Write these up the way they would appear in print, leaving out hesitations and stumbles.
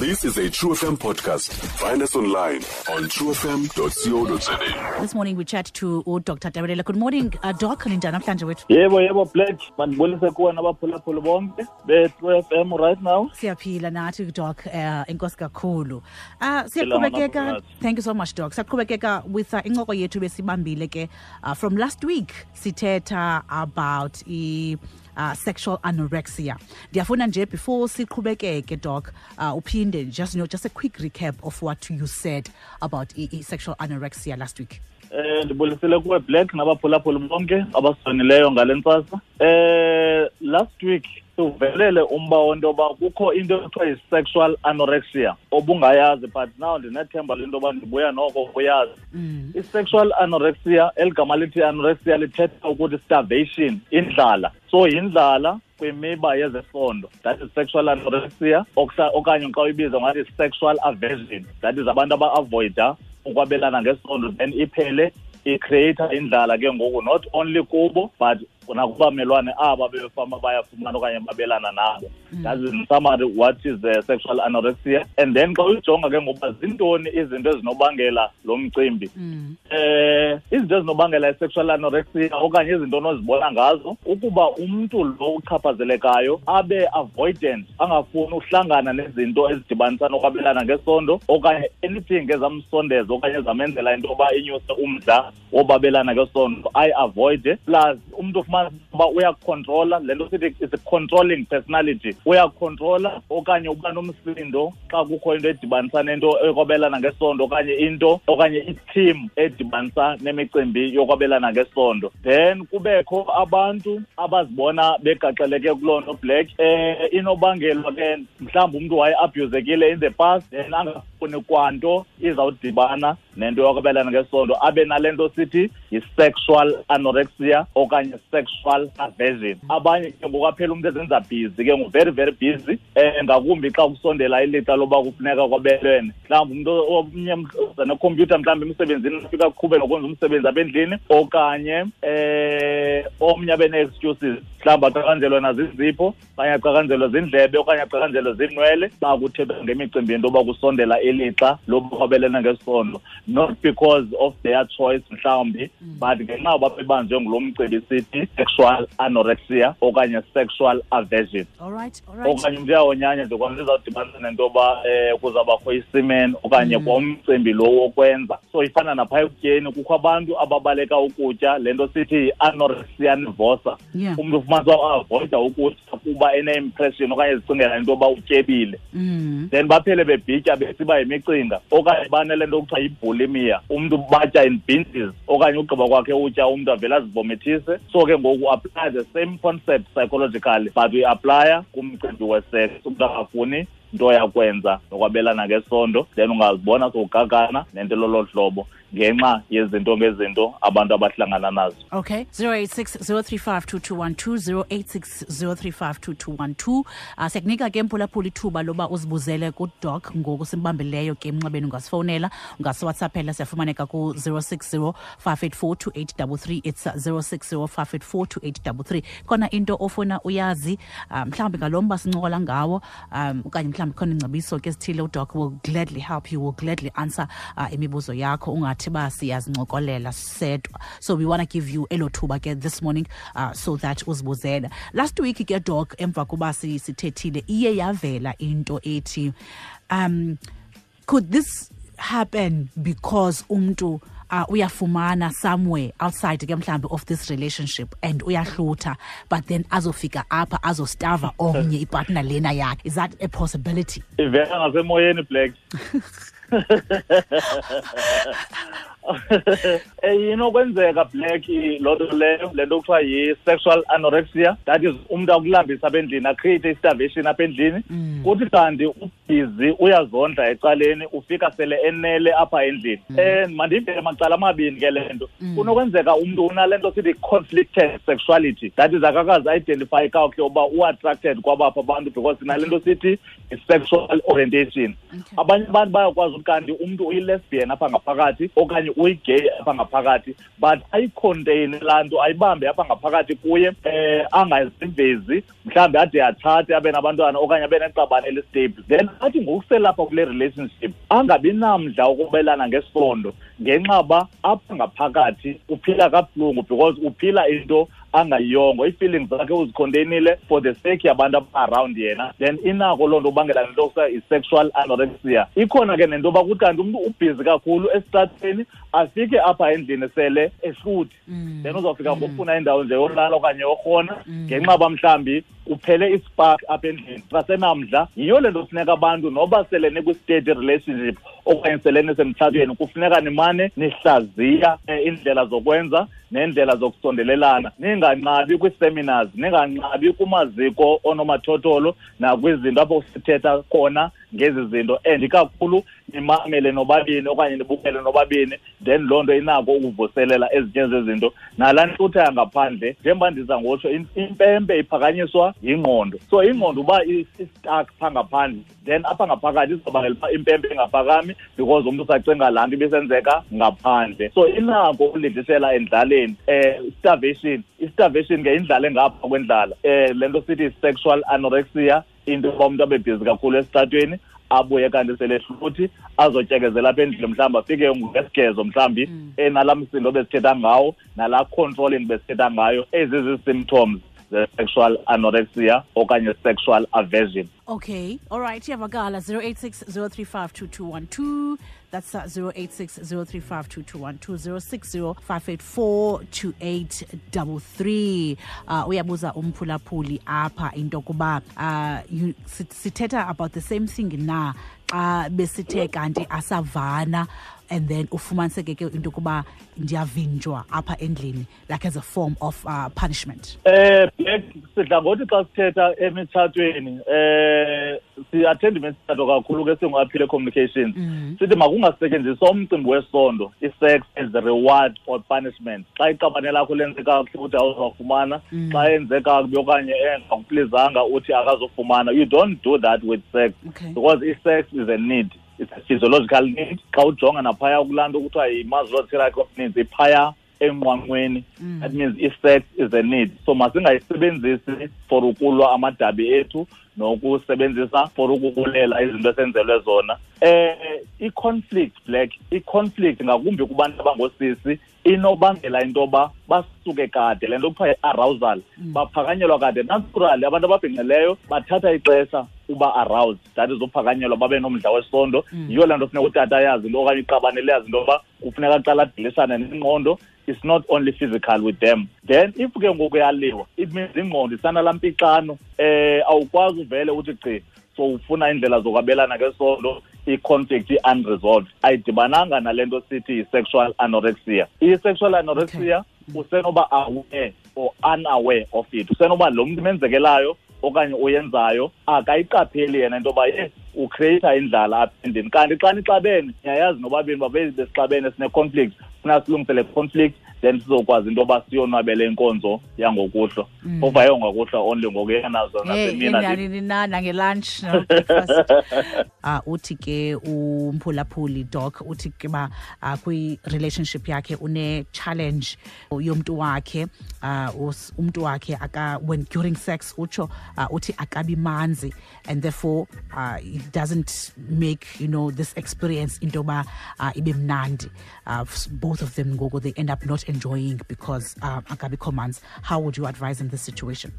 This is a True FM podcast. Find us online on truefm.co.za. This morning we chat to Dr. Tebelele. Good morning, Doc. Ninjani namhlanje wethu? Yebo, yebo, Black. Mandibulise kuwe nabaphulaphuli bonke be-True FM right now. Siyaphila nathi, Doc. Enkosi kakhulu. Siyaqhubekeka. Thank you so much, Doc. Siyaqhubekeka with incoko yethu besibambile ke from last week, sithetha about sexual anorexia. Ndiyafuna nje before siqhubekeke, Doc, uphinde just a quick recap of what you said about sexual anorexia last week. Ndibulisele kuwe, Black, nabaphulaphuli bonke abasonileyo ngale ntsasa. Last week uvelele umba wento yoba kukho into ekuthiwa yi-sexual anorexia obungayazi, but now ndinethemba lento yoba ndibuya noko uyazi. I-sexual anorexia, eli gama lithi anorexia lithetha ukuthi starvation, indlala. So yindlala kwimiba yezesondo, that is sexual anorexia, okanye xa uyibiza ngathi sexual aversion, that is abantu aba-avoida ukwabelana ngesondo, then iphele i-create indlala ke ngoku, not only kubo but nakubamelwane aba befama bayafumana okanye babelana nabo. That is in summary what is the sexual anorexia. And then xa uyijonga ke ngoba zintoni izinto ezinobangela lo mcimbi, izinto ezinobangela i-sexual anorexia okanye izinto onozibona ngazo, ukuba umntu lo uchaphazelekayo abe avoidant, angafuni uhlangana nezinto ezidibanisa nokwabelana ngesondo okanye anything ezamsondeza okanye ezamenzela into yoba inyuse umdla wobabelana ngesondo, ayi-avoide. Plus umntu ufumana uba uyakhontrola, le nto sithi is a controlling personality, uyakhontrola okanye uba nomsindo xa kukho into edibanisa nento yokwabelana ngesondo okanye into okanye i-team edibanisa nemicimbi yokwabelana ngesondo. Then kubekho abantu abazibona begaxeleke kuloo nto, Black, inobangelwa ke mhlawumbi umntu waye-abuzekile in the past, then angafuni kwanto izawudibana nento yokwabelana ngesondo, abe nale nto sithi yi-sexual anorexia okanye sexual aversion. Abanye ke ngokwaphela umntu ezenza busy ke, ngu-very very busy, ngakumbi xa kusondela ilixa loba kufuneka kwabelwene. Mhlawumbi umntu omnye uza nekhompyutha mhlawumbi emsebenzini, afika aqhube nokwenza umsebenzi apha endlini, okanye omnye abe nee-excuses, mhlawumbi aqakanjelwe nazizipho okanye aqakanjelwe zindlebe okanye aqakanjelwe ziinwele xa kuthethwa ngemicimbi yento yoba kusondela ilixa loba kwabelene ngesondo, not because of their choice mhlawumbi, but ngenxa yoba bebanjwe ngulo mcimbi sithi sexual anorexia okanye sexual aversion. All right, all right. Okanye umntu uyawonyanya nje kwanto izawudibanisa nento yoba kuzawubakho isimen okanye kwamcimbi lo wokwenza. So ifana napha ekutyeni, kukho abantu ababaleka ukutya, le nto sithi yi-anorexia nervosa. Umntu ufumanisa uba avoida ukutya kuba ene-impression okanye ezicingela into yoba utyebile. Then baphele bebhitya besiba yimicinga, okanye banele nto kuthiwa yibulimia, umntu batya in binges, okanye ugqiba kwakhe utya umntu avele azivomithise. So ke ngoku apply the same concept psychologically, but we apply kumcimbi we-sex. Umntu akafuni nto yakwenza nokwabelana ngesondo, then ungazibona sowugagana nento lolo hlobo ngenxa yezinto ngezinto abantu abahlangana nazo. Okay, 086 035 2212, 086 035 2212. Siyakunika ke mphulaphula ithuba loba uzibuzele kuDoc ngoku simbambileyo ke emnxebeni. Ungasifowunela, ungasiwhatsappela, siyafumaneka ku 060 584 2833. It's 060 584 2833. Khona into ofuna uyazi, mhlawumbi ngalo mba sincokola ngawo, okanye mhlawumbi khona ingcebiso ke esithile, uDoc will gladly help you, will gladly answer imibuzo yakho. Ungathi ba siyazincokolela sedwa. So we want to give you elo thuba ke this morning, so that uzibuzele. Last week ke, Doc, emva kuba sithethile, iye yavela into ethi, could this happen because umntu uyafumana somewhere outside ke mhlambi of this relationship and uyahlutha, but then azofika apha azostava omnye ipartner lena yakhe? Is that a possibility? Ivela ngasemoyeni, Black. Inokwenzeka, Black, loo nto leyo, le nto kuthiwa yi-sexual anorexia, that is umntu akulambisa apha endlini, acreate i-starvation apha endlini. Kuthi kanti ubhizi uyazondla ecaleni, ufika sele enele apha endlini. Mandivele macala amabini ke le nto. Kunokwenzeka umntu unale nto sithi conflicted sexuality, that is akakazi identify kakuhle uba u-attracted kwabapha abantu, because sinale nto sithi i-sexual orientation. Abanye abantu bayakwazi ukuthi kanti umntu uyi-lesbian apha ngaphakathi okanye Uyi-gay apha ngaphakathi, but ayi-contain laa nto, ayibambe apha ngaphakathi kuye, angazivezi, mhlawumbi ade atshate abe nabantwana okanye abe neqabane eli-stable. Then athi ngokuselapha kule relationship angabi namdla ukubelana ngesondo ngenxa ba apha ngaphakathi uphila kabuhlungu, because uphila into angayiyongo, ii-feelings zakhe uzi-containile for the sake yabantu aba-around yena. Then inako loo nto ubangela nento kuthiwa yi-sexual anorexia. Ikhona ke nento yoba kuthi kanti umntu ubhizi kakhulu esitratweni, afike apha endlini sele ehluthi, then uzawufika ngokufuna indawo nje yolala okanye yorhona, ngenxa uba mhlawumbi uphele i-spark apha endlini, sasenamdla. Yiyo le nto kufuneka abantu noba sele nikwi-steady relationship okanye sele nisemtshatweni, kufuneka nimane nihlaziya iindlela zokwenza neendlela zokusondelelana, ninganqabi kwii-seminars, ninganqabi kumaziko onomathotholo nakwizinto apho sithetha khona ngezi zinto, and ikakhulu nimamele nobabini okanye nibukele nobabini. Then loo nto inako ukuvuselela ezinye zezinto. Nalaa ntlutha yangaphandle, njengoba ndiza ngotsho, impempe iphakanyiswa yingqondo. So ingqondo uba i-stuck phaa ngaphandle, then apha ngaphakathi izobangela uba impempe ingaphakami, because umntu usacinga laa nto ibisenzeka ngaphandle. So inako ukulindisela endlaleni. Starvation, i-starvation ke indlala engapha kwendlala. Le nto sithi sexual anorexia, into yoba umntu abe bhizi kakhulu esitratweni, abuye kanti selehluthi, azotyekezela apha endlini, mhlawumbi afike ngesigezo, mhlawumbi enalaa msindo besithetha ngawo, nalaa controlling besithetha ngayo. Ezi zii-symptoms ze-sexual anorexia okanye sexual aversion. Okay, all right, iyavakala. 086 035 2212. That's 086 035 2212, 060 584 2833. Uyabuza umphulaphuli apha into yokuba sithetha about the same thing na xa besithe kanti asavana, and then ufumaniseke ke into yokuba ndiyavinjwa apha endlini, like as a form of punishment. Black, sidla ngothi xa sithetha emitshatweni, si-attenda imitshato kakhulu ke singu-Aphile Communications, sithi makungasetyenziswa umcimbi wesondo, i-sex, as a reward or punishment. Xa iqabane lakho lenze kakuhle uthi awuzawufumana, xa enze kakubi okanye engakuplizanga uthi akazofumana. You don't do that with sex, because i-sex is a need, it's a physiological need. Xa ujonga naphaya kulaa nto kuthiwa yi-Maslow's hierarchy of needs, iphaya enqwanqweni. That means i-sex is a need, so masingayisebenzisi for ukulwa amadabi ethu nokusebenzisa for ukubulela izinto esenzelwe zona. I-conflict, Black, i-conflict ngakumbi kubantu abangosisi inobangela into yoba basuke kade, le nto kuthiwa yi-arousal, baphakanyelwa kade. Naturally abantu ababhinqileyo bathatha ixesha uba aroused, that is uphakanyelwa babe nomdla wesondo. Yiyo le nto funeka utata ayazi into okanye iqabane liyazi into yoba kufuneka aqala adilisane nengqondo. It's not only physical with them. Then if ke ngoku yaliwa, it means ingqondo isanalaa mpixano, awukwazi uvele uthi gqi so ufuna indlela zokwabelana ngesondo. I-conflict i-unresolved, ayidibananga nale nto sithi yi-sexual anorexia. I-sexual anorexia, usenoba aware or unaware of it, usenoba lo mntu menzekelayo okanye uyenzayo akayiqapheli yena into yoba ye u-creata indlala apha endlini. Kanti xa nixabene, niyayazi nobabini uba besixabene, sine-conflict, funa silungise le conflict, then sizokwazi into yoba siyonwabele inkonzo yangokuhlwa. Phofu ayongokuhlwa only, ngoku yenazo nasemina. Nanini na, nange-lunch, no breakfast. Uthi ke umphulaphuli, Doc, uthi ke ba kwi-relationship yakhe une-challenge yomntu wakhe, umntu wakhe aka when during sex utsho, uthi akabi manzi, and therefore it doesn't make this experience into yoba ibe mnandi. Both of them ngoku they end up not enjoying because akabikho manzi. How would you advise in this situation?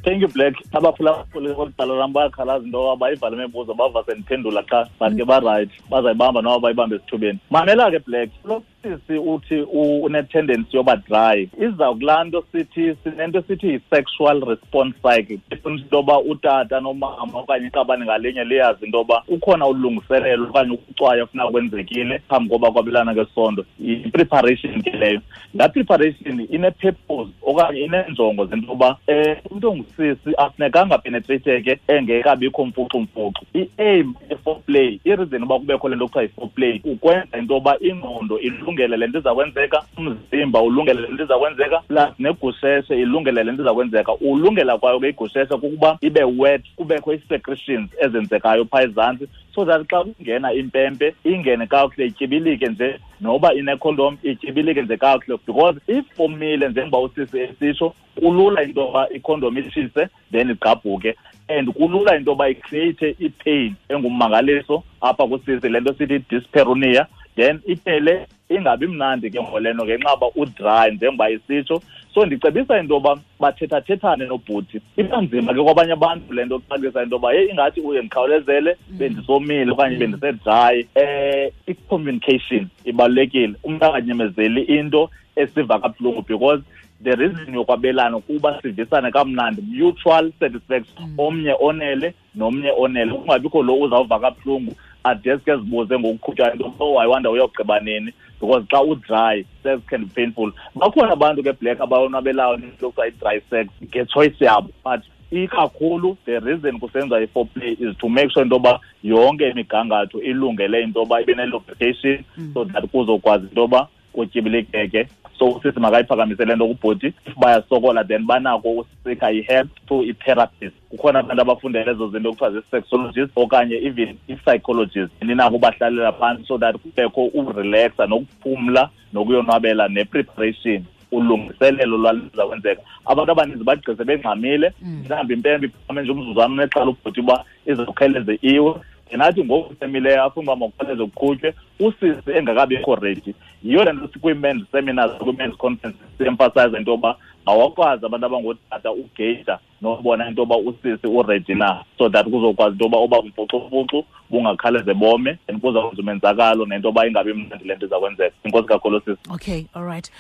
Thank you, Black. Abaphulaphuli kweli lam bayakhalaza into yoba bayivale imibuzo, bava sendiphendula qha, but ke ba-right, bazayibamba noba bayibambe esithubeni. Mamela ke, Black, lo sisi uthi une-tendency yoba dry, iza kulaa nto sithi sinento sithi yi-sexual response cycle. Ifuna into yoba utata nomama okanye iqabane ngalinye liyazi into yoba kukhona ulungiselelo okanye ukucwaya ofuna kwenzekile phambi koba kwabelana ngesondo. Yi-preparation ke leyo. Laa preparation ine-purpose okanye ineenjongo zento yoba umntu ongusisi afunekanga penetrateke engekabikho mfuxumfuxu. I-aim ye-foreplay, i-reason uba kubekho le nto kuthiwa yi-foreplay, ukwenza into yoba ingqondo ilungele le nto iza kwenzeka, umzimba ulungele le nto iza kwenzeka, plus negusheshe ilungele le nto iza kwenzeka. Ulungela kwayo ke igusheshe kukuba ibe wet, kubekho ii-secretions ezenzekayo phaa ezantsi, so that xa kungena impempe ingene kakuhle, ityibilike nje, noba inekhondom ityibilike nje kakuhle. Because if omile, njengoba usisi esitsho, kulula into yoba ikhondom itshise then igqabhuke, and kulula into yoba icreate ipain engummangaliso apha kusisi, le nto sithi dyspareunia, then iphele ingabi mnandi ke ngoleno ngenxa yoba udry njengoba isitsho. So ndicebisa into yoba bathethathethane nobhuti. Iba nzima ke kwabanye abantu le nto kuxakisa into yoba yeyi ingathi uye ndikhawulezele, bendisomile okanye bendisedry. I-communication ibalulekile, umntu anganyamezeli into esiva kabuhlungu, because the reason yokwabelana kuba sivisane kamnandi, mutual satisfaction, omnye onele nomnye onele, kungabikho lo uzawuva kabuhlungu adeske zibuze ngokuqhutywa into, oh I wonder uyogqiba nini, because xa udry sex can be painful. Bakhona abantu ke black abayonwabelayo into kuthiwa i-dry sex ngechoice yabo, but ikakhulu the reason kusenza i-foreplay is to make sure into yoba yonke imigangatho ilungele into yoba ibe ne-lubrication, so that kuzokwazi into yoba kutyibilikeke. So usisi makayiphakamise le nto kubhuti. If bayasokola then banako usika i-help to i-therapist. Kukhona abantu abafundele ezo zinto kuthiwa zii-sexologist okanye even i-psychologist, ninako ubahlalela phantsi so that kubekho urelaxa nokuphumla nokuyonwabela ne-preparation, ulungiselelo lwaliza kwenzeka. Abantu abaninzi bagqise bengxamile, mhlawumbi impempe iphakame nje umzuzwana unexhala ubhuti uba izawukhawuleze iwe, nathi ngoku semileyo afuna uba makukhawuleze kuqhutywe, usisi engakabikho ready. Yiyo le nto sikwii-men's seminars, kwii-men's conference si-emphasize into yoba awakwazi abantu abangootata ugeyija nobona into yoba usisi uready na, so that kuzokwazi into yoba oba mfuxufuxu bungakhawuleze bome, and kuzawwenza umenzakalo nento yoba ingabi mnandi le nto iza kwenzeka. Inkosi kakhulu sisi. Okay, all right.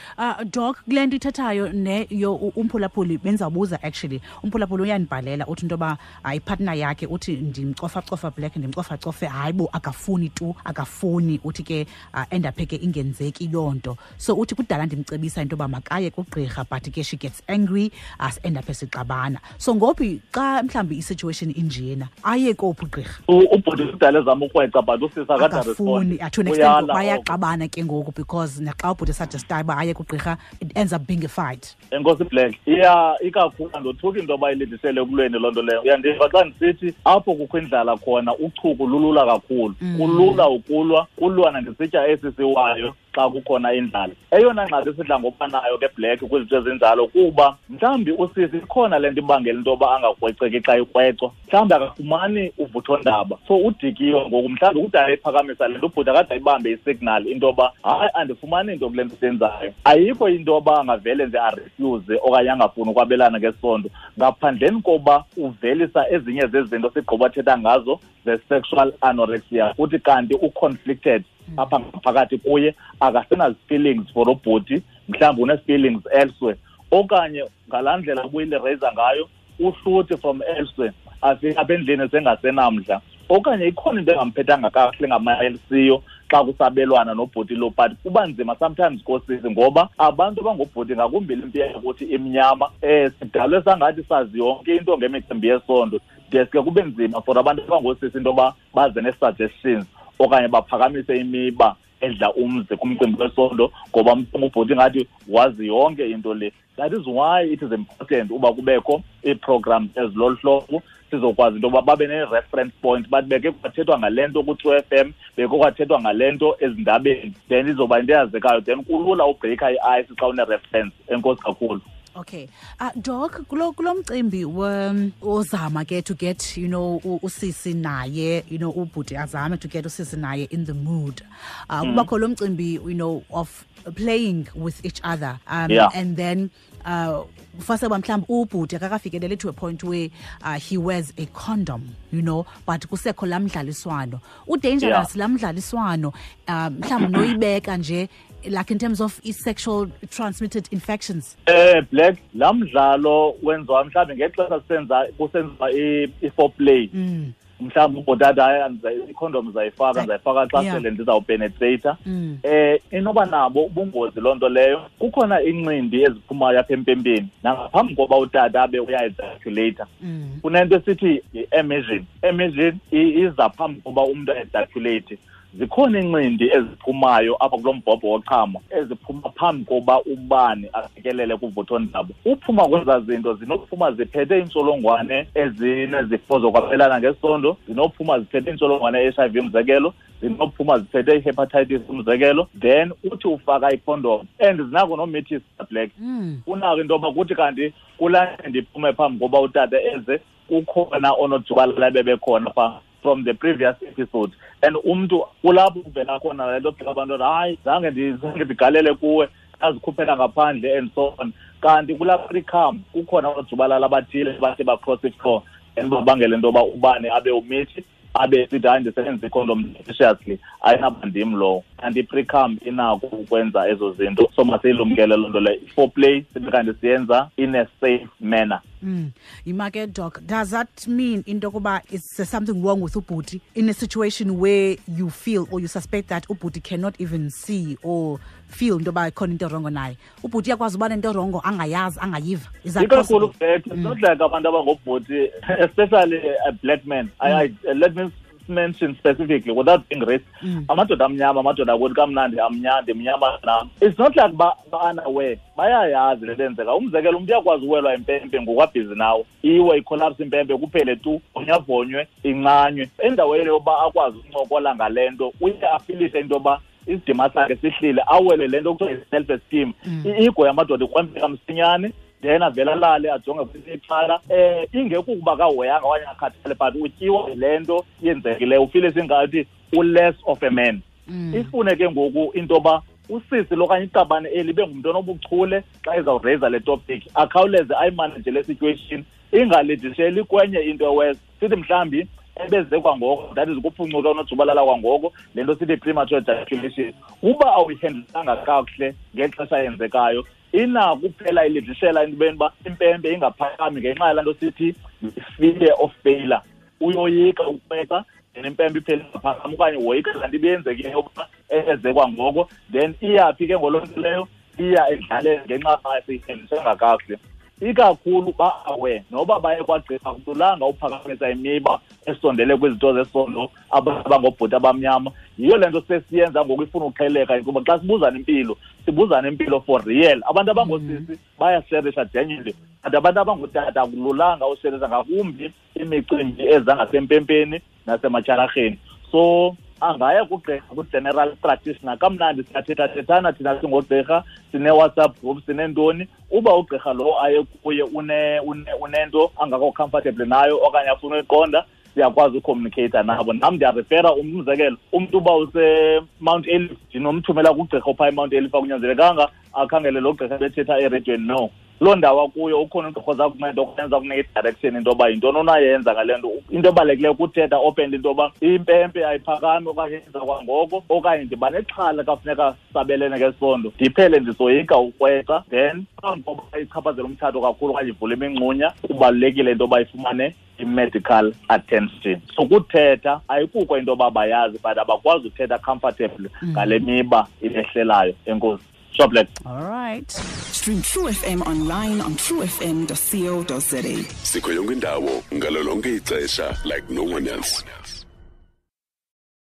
Doc, kule nto ithethayo ne yo umphulaphuli bendizawubuza actually. Umphulaphuli uyandibhalela uthi into yoba ipartner yakhe uthi ndimcofacofa black, ndimcofacofe, hayi bo akafuni tu, akafuni, uthi ke endaphe ke ingenzeki loo nto. So uthi kudala ndimcebisa into yoba makaye kugqirha, but ke she gets angry as endaphe sixabana. So ngophi xa mhlawumbi i-situation injena aye kophi ugqirha? Ubhuti kudala ezama ukrweca, but usisi akafuni, to an extent bayaxabana ke ngoku, because naxa ubhuti suggestayo uba aye kugqirha it ends up being a fight. Enkosi Black, iya ikakhulu andothuki into yoba ilindisele ekulweni loo nto leyo. Uyandiva xa ndisithi apho kukho indlala khona uchuku lulula kakhulu, kulula ukulwa, kulwa nangesitya esi siwayo xa kukhona indlala. Eyona ngxaki esidla ngokuba nayo ke Black kwizinto ezinjalo kuba mhlawumbi usisi ikhona le nto ibangela into yoba angakrweceki xa ikrwecwa, mhlawumbi akafumani uvuthondaba, so udikiwe ngoku, mhlawumbi kudala ephakamisa le nto, ubhuti akade ayibambe isignal into yoba hayi andifumani nto kule nto siyenzayo. Ayikho into yoba angavele nje arefuse okanye angafuni ukwabelana ngesondo ngaphandleni koba uvelisa ezinye zezinto sigqiba thetha ngazo ze-sexual anorexia, uthi kanti u-conflicted apha ngaphakathi kuye, akasenazi-feelings for ubhuti, mhlawumbi une-feelings elsewhere, okanye ngalaa ndlela ubuyile-raise ngayo uhluthi from elsewhere, afike apha endlini sengasenamdla, okanye ikhona into engamphethanga kakuhle ngamayelisiyo xa kusabelwana nobhuti lo. But kuba nzima sometimes kosisi ngoba abantu abangobhuti ngakumbi le mpi yakuthi imnyama, sidalwe sangathi sazi yonke into ngemicimbi yesondo, deske kube nzima for abantu abangosisi into yoba baze nee-suggestions okanye baphakamise imiba edla umzi kumcimbi wesondo, ngoba ubhuti ngathi wazi yonke into le. That is why it is important uba kubekho ii-programs ezilolu hlobo, sizokwazi into yoba babe ne-reference point, bathi beke kwathethwa ngale nto ku-True FM, beke kwathethwa ngale nto ezindabeni, then izoba into eyazekayo, then kulula ubreaka i-ice xa une-reference. Enkosi kakhulu. Okay. Doc, kulo mcimbi ozama ke to get, you know, usisi naye, you know, ubhuti azame to get usisi naye in the mood. Kubakho lo mcimbi, you know, of playing with each other. And then first of all, mhlawumbi ubhuti akakafikeleli to a point where he wears a condom, you know, but kusekho laa mdlaliswano. Udangerous laa mdlaliswano, mhlawumbi noyibeka nje, like in terms of sexual transmitted infections. Black, laa mdlalo wenziwa mhlawumbi ngexesha kusenziwa i-foreplay. Mhlawumbi ubhotata ikhondom ndizayifaka, ndizayifaka xa sele ndizawupenetrata. Inoba nabo ubungozi loo nto leyo. Kukhona iincindi eziphumayo apha empempeni nangaphambi koba utata abe uya-ejaculata. Kunento esithi yi-emission. Emission iza phambi koba umntu a-ejaculate. Zikhona iincindi eziphumayo apha kulo mbhobho wochamo eziphuma phambi koba ubani afikelele kuvuthondaba. Uphuma kwezaa zinto zinokuphuma ziphethe iintsholongwane ezinezifo zokwabelana ngesondo, zinophuma ziphethe iintsholongwane e-HIV umzekelo, zinophuma ziphethe i-hepatitis umzekelo. Then uthi ufaka ikhondom and zinako nomithisa black. Unako into yoba kuthi kanti kulaa ndiphume phambi koba utata eze, kukhona onojubalala bebekhona phaa from the previous episode. And umntu kulapho kuvela khona le nto phela abantu, hayi, zange ndigalele kuwe, azikhuphela ngaphandle and so on. Kanti kulaa pre-cum kukhona oojubalala abathile bathi ba-cross ifloor and babangele into yoba ubani abe umithi, abe sithi hayi, ndisebenzisa ikhondom judiciously, ayinaba ndim lowo. Kanti i-pre-cum inako ukwenza ezo zinto, so masiyilumkele loo nto leyo. Foreplay sibe kanti siyenza in a safe manner. Yima ke, Doc, does that mean into yokuba is there something wrong with ubhuti in a situation where you feel or you suspect that ubhuti cannot even see or feel into yoba ikhona into erongo naye? Ubhuti uyakwazi uba nento erongo angayazi, angayiva? Is that Ikakhulu possible? Black, it's not like abantu abangobhuti, especially a black man. Let me mention specifically without being racist. Amadoda amnyama, amadoda akuthi kamnandi amnyama, ndimnyama nam. It's not like ba-unaware, bayayazi le nto yenzeka. Umzekelo, umntu uyakwazi uwelwa impempe ngokwabhizi nawo, iwe ikholapse impempe kuphele tu, vonyavonywe, incanywe. Endaweni yoba akwazi ukuncokola ngale nto, uye afilise into yoba isidima sakhe sihlile, awele le nto kuthiwa yi-self esteem. I-ego yamadoda ikrwempeka msinyane, then avele alale ajonge kwelinye icala. Ingekukuba kahoyanga okanye akhathale, but utyiwa yile nto yenzekileyo, ufile singathi u-less of a man. Ifune ke ngoku into yoba usisi lokanye iqabane eli ibe ngumntu onobuchule xa ezawureyisa le topic, akhawuleze ayimanage le situation, ingalidisheli kwenye into ewes. Sithi mhlawumbi ebeze kwangoko, that is ukuphuncuka unojubalala kwangoko, le nto sithi premature ejaculation. Uba awuyihendlanga kakuhle ngexesha yenzekayo, inako kuphela ilidishela entweni uba impempe ingaphakami ngenxa yalaa nto sithi fear of failure. Uyoyika ukweqa, then impempe iphele ingaphakami, okanye woyika laa nto ibiyenzekile yokuba eze kwangoko, then iyaphi ke ngoloo nto leyo, iya edlaleni ngenxa seyihendlisanga kakuhle. Ikakhulu ba-aware noba baye kwagqirha, akululanga uphakamisa imiba esondele kwizinto zesondo abangobhuti abamnyama. Yiyo le nto sesiyenza ngoku ifuna uqheleka, kuba xa sibuzana impilo, sibuzana impilo for real. Abantu abangoosisi bayasherisha genuinely, but abantu abangootata akululanga usherisha, ngakumbi imicimbi eza ngasempempeni nasematyhalarheni. So angaya kugqirha, ku-general practitioner. Kamnandi siyathethathethana thina singogqirha, sine-WhatsApp group, sineentoni. Uba ugqirha lo aye kuye unento angakho comfortable nayo okanye afuna uyiqonda, siyakwazi ucommunicate nabo. Nam ndiyarefera, umzekelo, umntu uba use-Mount Ayliff, ndinomthumela kugqirha ophaa eMount Ayliff, akunyanzelekanga akhangele lo gqirha bethetha ereyidweni. No, loo ndawo akuyo ukhona ugqirha oza kunceda okanye oza kunika i-direction into yoba yintoni onayenza ngale nto. Into ebalulekileyo kuthetha openly into yoba impempe ayiphakami okanye yenza kwangoko, okanye ndiba nexhala xa funeka sabelene ngesondo, ndiphele ndisoyika ukweqa. Then phambi koba ichaphazele umtshato kakhulu okanye ivule imingxunya, kubalulekile into yoba ifumane i-medical attention. So kuthetha ayikuko into yoba bayazi, but abakwazi uthetha comfortably ngale miba ibehlelayo. Enkosi. Sure, Black. All right. Stream True FM online on truefm.co.za. Sikho yonke indawo ngalo lonke ixesha like no one else.